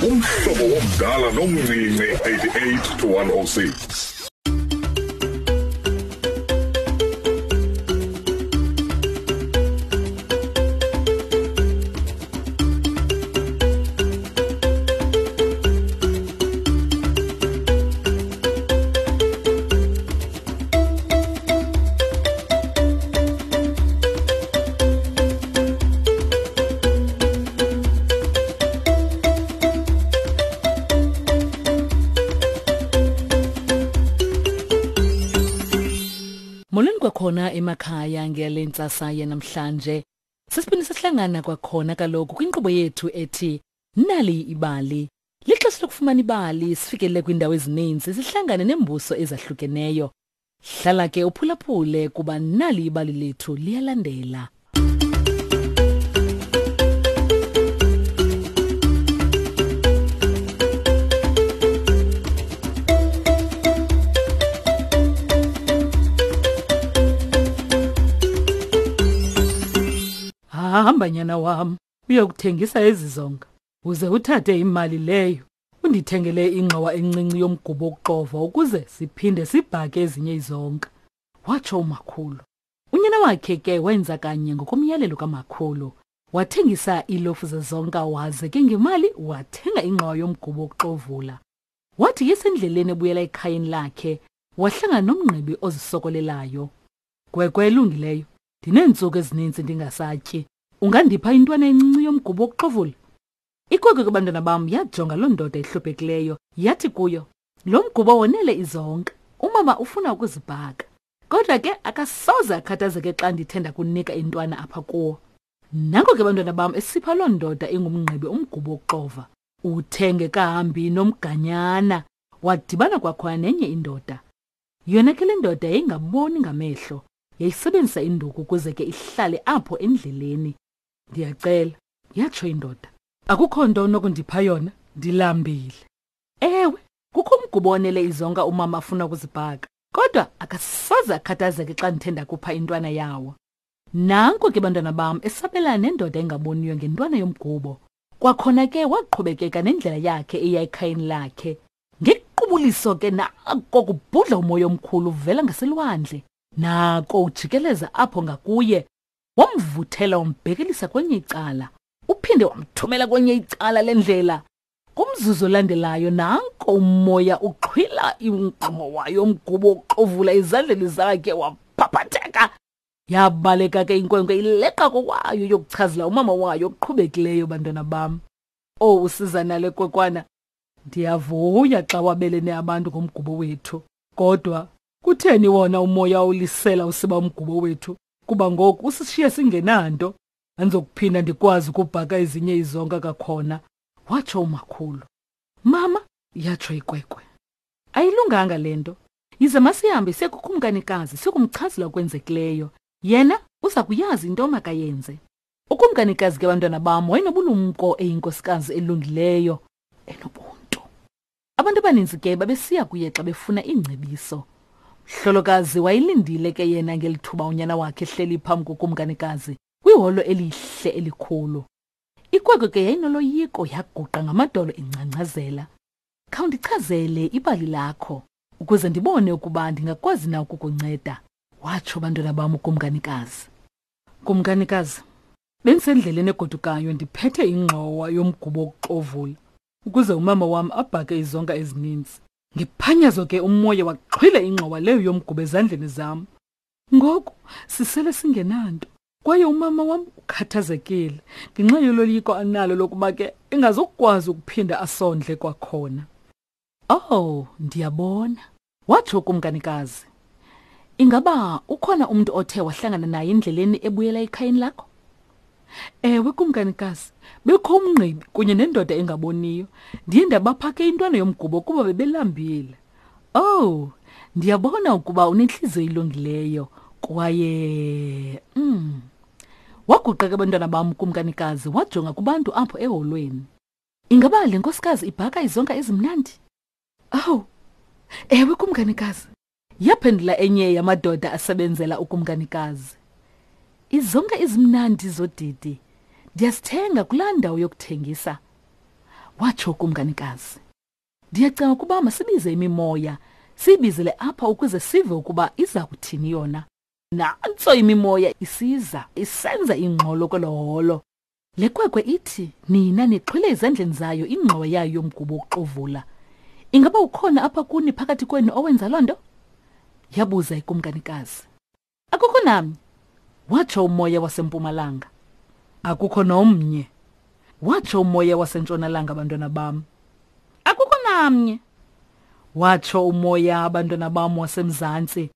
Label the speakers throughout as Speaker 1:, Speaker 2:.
Speaker 1: Umhlobo womdala nomncinci 88 to 106.
Speaker 2: Molweni kwakhona emakhaya ngale ntsasa yanamhlanje. Sesiphinde sahlangana kwakhona kaloku kwinkqubo yethu ethi Nali ibali. Lixesha lokufumana ibali sifikelele kwiindawo ezininzi sihlangane neembuso ezahlukeneyo. Hlala ke uphulaphule kuba nali ibali lethu liyalandela. Hamba nyana wam uyokuthengisa ezi zonka uze uthathe imali leyo undithengele ingxowa encinci yomgubo wokuxova ukuze siphinde sibhake ezinye izonka, watsho umakhulu. Unyana wakhe ke wenza kanye ngokomyalelo kamakhulu. Wathengisa iilofu zezonka waze ke ngemali wathenga ingxowa yomgubo wokuxovula. Wathi yesendleleni ebuyela ekhayeni lakhe, wahlangana nomngqibi ozisokolelayo. Gwegwe elungileyo, ndineentsuku ezininzi ndingasatyi. Ungandipha intwana encinci yomgubo wokuxovula? Ikwekwe ke bantwana bam yajonga loo ndoda ihluphekileyo yathi kuyo, Lo mgubo wonele izonka. Umama ufuna ukuzibhaka. Kodwa ke akasoze akhathazeke xa ndithe ndakunika intwana apha kuwo. Nanko ke bantwana bam esipha loo ndoda ingumngqibi umgubo wokuxova. Uthe ngekahambi nomganyana wadibana kwakhona nenye indoda. Yona ke le ndoda yayingaboni ngamehlo, yayisebenzisa induku ukuze ke ihlale apho endleleni. Ndiyacela, yatsho indoda. Akukho nto onokundipha yona, ndilambile. Ewe, kukho umgubo onele izonka umama afuna ukuzibhaka, kodwa akasoze akhathazeke xa ndithe ndakupha intwana yawo. Nanko ke bantwana bam esabelana nendoda engaboniyo ngentwana yomgubo. Kwakhona ke waqhubekeka nendlela yakhe eya ekhayeni lakhe. Ngequbuliso ke nako kubhudla umoya omkhulu uvela ngaselwandle. Nako ujikeleza apho ngakuye Wamvuthela wambhekelisa kwenye icala. Uphinde wamthumela kwenye icala lendlela. Kumzuzu olandelayo nanko umoya uxhwila ingxowa yomgubo uxovula ezandleni zakhe waphaphatheka. Yabaleka ke inkwenkwe ileqa kokwayo yokuchazela umama wayo okuqhubekileyo bantwana bam. Oh usiza nale kwekwana. Ndiyavuya xa wabelene abantu ngomgubo wethu. Kodwa kutheni wona umoya ulisela usiba umgubo wethu? Kuba ngoku usishiye singenanto. Andizokuphinda ndikwazi ukubhaka ezinye izonka kakhona, watsho umakhulu. Mama, yatsho ikwekwe. Ayilunganga le nto. Yize masihambe siye kukumkanikazi siyokumchazela okwenzekileyo. Yena uza kuyazi into makayenze. Ukumkanikazi ke bantwana bam wayenobulumko eyinkosikazi elungileyo enobuntu. Abantu abaninzi ke babesiya kuye xa befuna iingcebiso. Mhlolokazi wayelindile ke yena ngeli thuba unyana wakhe ehleli phambi kokumkanikazi kwiholo elihle elikhulu. Ikwekwe ke yayinoloyiko yaguqa ngamadolo ingcangcazela. Khawundichazele ibali lakho ukuze ndibone ukuba ndingakwazi na ukukunceda, watsho bantwana bam ukumkanikazi. Kumkanikazi, bendisendleleni egodukayo ndiphethe ingxowa yomgubo wokuxovula ukuze umama wam abhake izonka ezininzi. Ngephanyazo ke umoya waxhwila ingxowa leyo yomgubo ezandleni zam. Ngoku sisele singenanto kwaye umama wam ukhathazekile ngenxa yoloyiko analo lokuba ke engazokukwazi ukuphinda asondle kwakhona. Oh, ndiyabona, watsho ukumkanikazi. Ingaba ukhona umntu othe wahlangana naye endleleni ebuyela ekhayeni lakho? Ewe, kumkanikazi, bekho umngqibi kunye nendoda engaboniyo. Ndiye ndabaphake intwana yomgubo kuba bebelambile. Oh, ndiyabona ukuba unentliziyo ilungileyo kwaye Waguqa ke bantwana bam kumkanikazi wajonga kubantu apho eholweni. Ingaba le nkosikazi ibhaka izonka ezimnandi? Awu, ewe kumkanikazi. Yaphendula enye yamadoda asebenzela ukumkanikazi. Izonka ezimnandi zodidi ndiyazithenga kulaa ndawo yokuthengisa. Watsho ukumkanikazi. Ndiyacinga ukuba masibize imimoya, siyibizele apha ukuze sive ukuba iza kuthini yona. Nantso imimoya isiza, isenza ingxolo kwelo holo. Le kwekwe ithi nina nixhwile ezandleni zayo ingxowa yayo yomgubo wokuxovula. Ingaba ukhona apha kuni phakathi kwenu owenza loo nto? Yabuza ikumkanikazi. Akukho namnye, watsho umoya wasempumalanga. Akukho nomnye, watsho umoya wasentshonalanga, bantwana bam. Akukho namnye, watsho umoya, abantwana bam, wasemzantsi.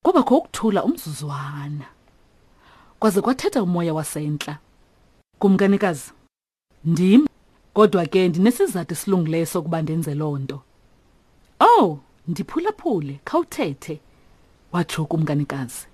Speaker 2: Kwabakho ukuthula umzuzwana. Kwaze kwathetha umoya wasentla. Kumkanikazi, ndim, kodwa ke ndinesizathu esilungileyo sokuba ndenze loo nto. Oh, ndiphulaphule, khawuthethe, watsho ukumkanikazi.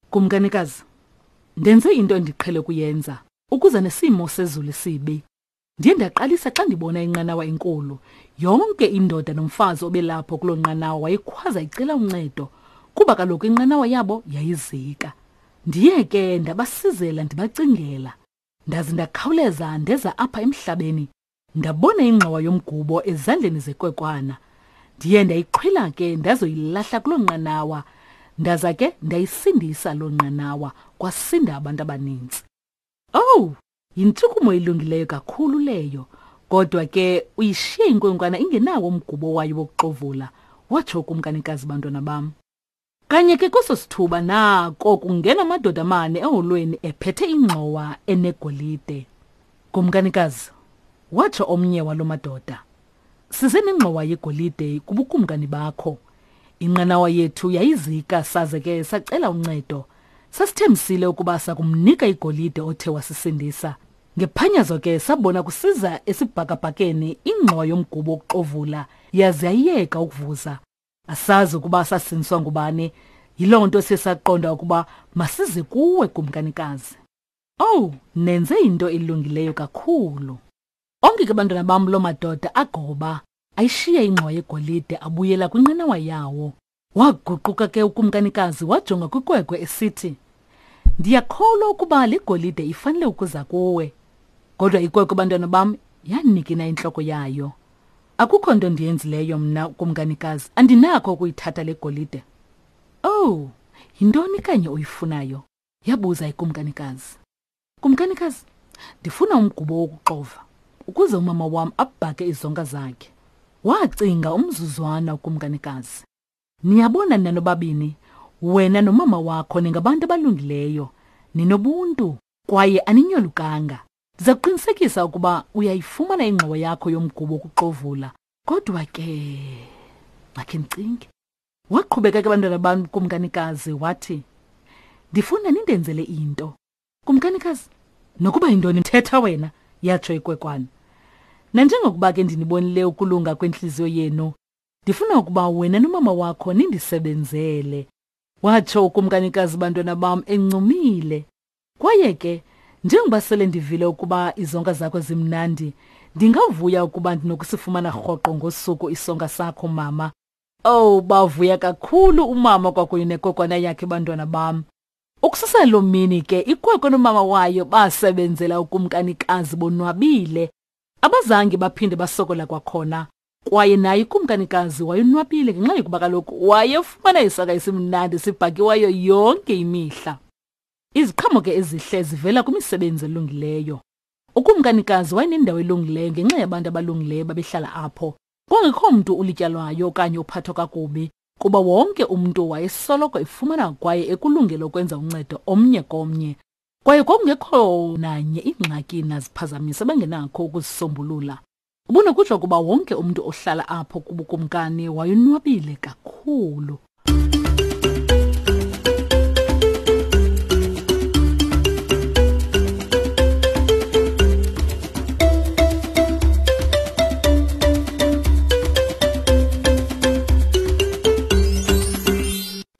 Speaker 2: Kumkanikazi, ndenze into endiqhele ukuyenza ukuze nesimo sezulu sibi. Ndiye ndaqalisa xa ndibona inqanawa enkulu. Yonke indoda nomfazi obelapho kuloo nqanawa wayekhwaza icela uncedo, kuba kaloku inqanawa yabo yayizika. Ndiye ke ndabasizela ndibacingela. Ndaze ndakhawuleza ndeza apha emhlabeni. Ndabona ingxowa yomgubo ezandleni zekwekwana. Ndiye ndayixhwila ke ndazoyilahla kuloo nqanawa. Ndaza ke ndayisindisa loo nqanawa, kwasinda abantu abaninzi. Owu, yintshukumo elungileyo kakhulu leyo. Kodwa ke uyishiye inkwenkwana ingenawo umgubo wayo wokuxovula, watsho ukumkanikazi, bantwana bam. Kanye ke kweso sithuba nako kungena amadoda amane eholweni ephethe ingxowa enegolide. Kumkanikazi, watsho omnye walo madoda, size nengxowa yegolide kubukumkani bakho. Inqanawa yethu yayizika saze ke sacela uncedo. Sasithembisile ukuba sakumnika igolide othe wasisindisa. Ngephanyazo ke sabona kusiza esibhakabhakeni ingxowa yomgubo wokuxovula yaze yayeka ukuvuza. Asazi ukuba sasindiswa ngubani. Yiloo nto siye saqonda ukuba masize kuwe, kumkanikazi. Owu, nenze into elungileyo kakhulu. Onke ke bantwana bam loo madoda agoba, ayishiya ingxowa yegolide abuyela kwinqanawa yawo. Waguquka ke ukumkanikazi wajonga kwikwekwe esithi, Ndiyakholwa ukuba le golide ifanele ukuza kuwe. Kodwa ikwekwe bantwana bam yanikina intloko yayo. Akukho nto ndiyenzileyo mna kumkanikazi, andinakho ukuyithatha le golide. Owu, yintoni kanye oyifunayo? Yabuza ikumkanikazi. Kumkanikazi, ndifuna umgubo wokuxova ukuze umama wam abhake izonka zakhe. Wacinga umzuzwana ukumkanikazi. Niyabona nina nobabini, wena nomama wakho ningabantu abalungileyo, ninobuntu kwaye aninyolukanga. Ndiza kuqinisekisa ukuba uyayifumana ingxowa yakho yomgubo wokuxovula. Kodwa ke, makhe ndicinge. Waqhubeka ke bantwana bam kumkanikazi wathi, Ndifuna nindenzele into. Kumkanikazi, nokuba yintoni thetha wena, yatsho ikwekwana. Nanjengokuba ke ndinibonile ukulunga kwentliziyo yenu, ndifuna ukuba wena nomama wakho nindisebenzele. Watsho ukumkanikazi bantwana bam encumile. Kwaye ke, njengoba sele ndivile ukuba izonka zakho zimnandi, ndingavuya ukuba ndinokusifumana rhoqo ngosuku isonka sakho, mama. Owu, bavuya kakhulu umama kwakunye nekokwana yakhe bantwana bam. Ukususela loo mini ke ikwekwe nomama wayo basebenzela ukumkanikazi bonwabile. Abazange baphinde basokola kwakhona. Kwaye naye ukumkanikazi wayonwabile ngenxa yokuba kaloku wayefumana isaka esimnandi sibhakiweyo yonke imihla. Iziqhamo ke ezihle zivela kwimisebenzi elungileyo. Ukumkanikazi wayenendawo elungileyo ngenxa yabantu abalungileyo babehlala apho. Kwangekho mntu ulityalwayo okanye uphathwa kakubi, kuba wonke umntu wayesoloko efumana kwaye ekulungele ukwenza uncedo omnye komnye. Kwaye kwakungekho nanye ingxaki naziphazamisi abangenakho ukuzisombulula. Ubunokutsho ukuba wonke umntu ohlala apho kubukumkani wayonwabile kakhulu.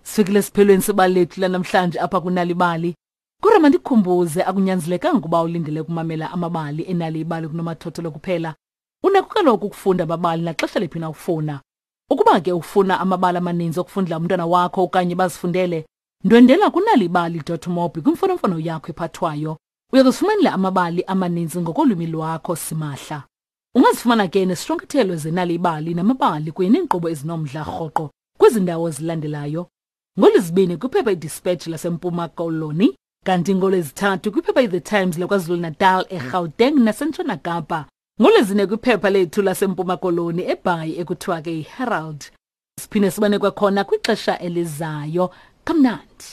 Speaker 2: Sifikile esiphelweni sebali lethu lanamhlanje apha kunalibali. Kodwa mandikukhumbuze akunyanzelekanga ukuba ulindele ukumamela amabali enali ibali kunomathotholo kuphela. Unako kaloku ukufunda amabali naxesha liphi na ufuna. Ukuba ke ufuna amabali amaninzi okufundela umntwana wakho okanye bazifundele, ndwendela kunalibali.mobi kwimfonomfono yakho ephathwayo. Uya kuzifumanela amabali amaninzi ngokolwimi lwakho simahla. Ungazifumana ke nesishwankathelo zenalibali namabali kunye neenkqubo ezinomdla rhoqo kwezi ndawo zilandelayo. NgoLwezibini kwiphepha iDispatch laseMpuma Koloni, kanti ngoLwezithathu kwiphepha iThe Times laKwaZulu-Natal, eGauteng naseNtshona Kapa. NgoLwezine kwiphepha lethu laseMpuma Koloni eBhayi ekuthiwa ke yiHerald. Siphinde sibone kwakhona kwixesha elizayo. Kamnandi.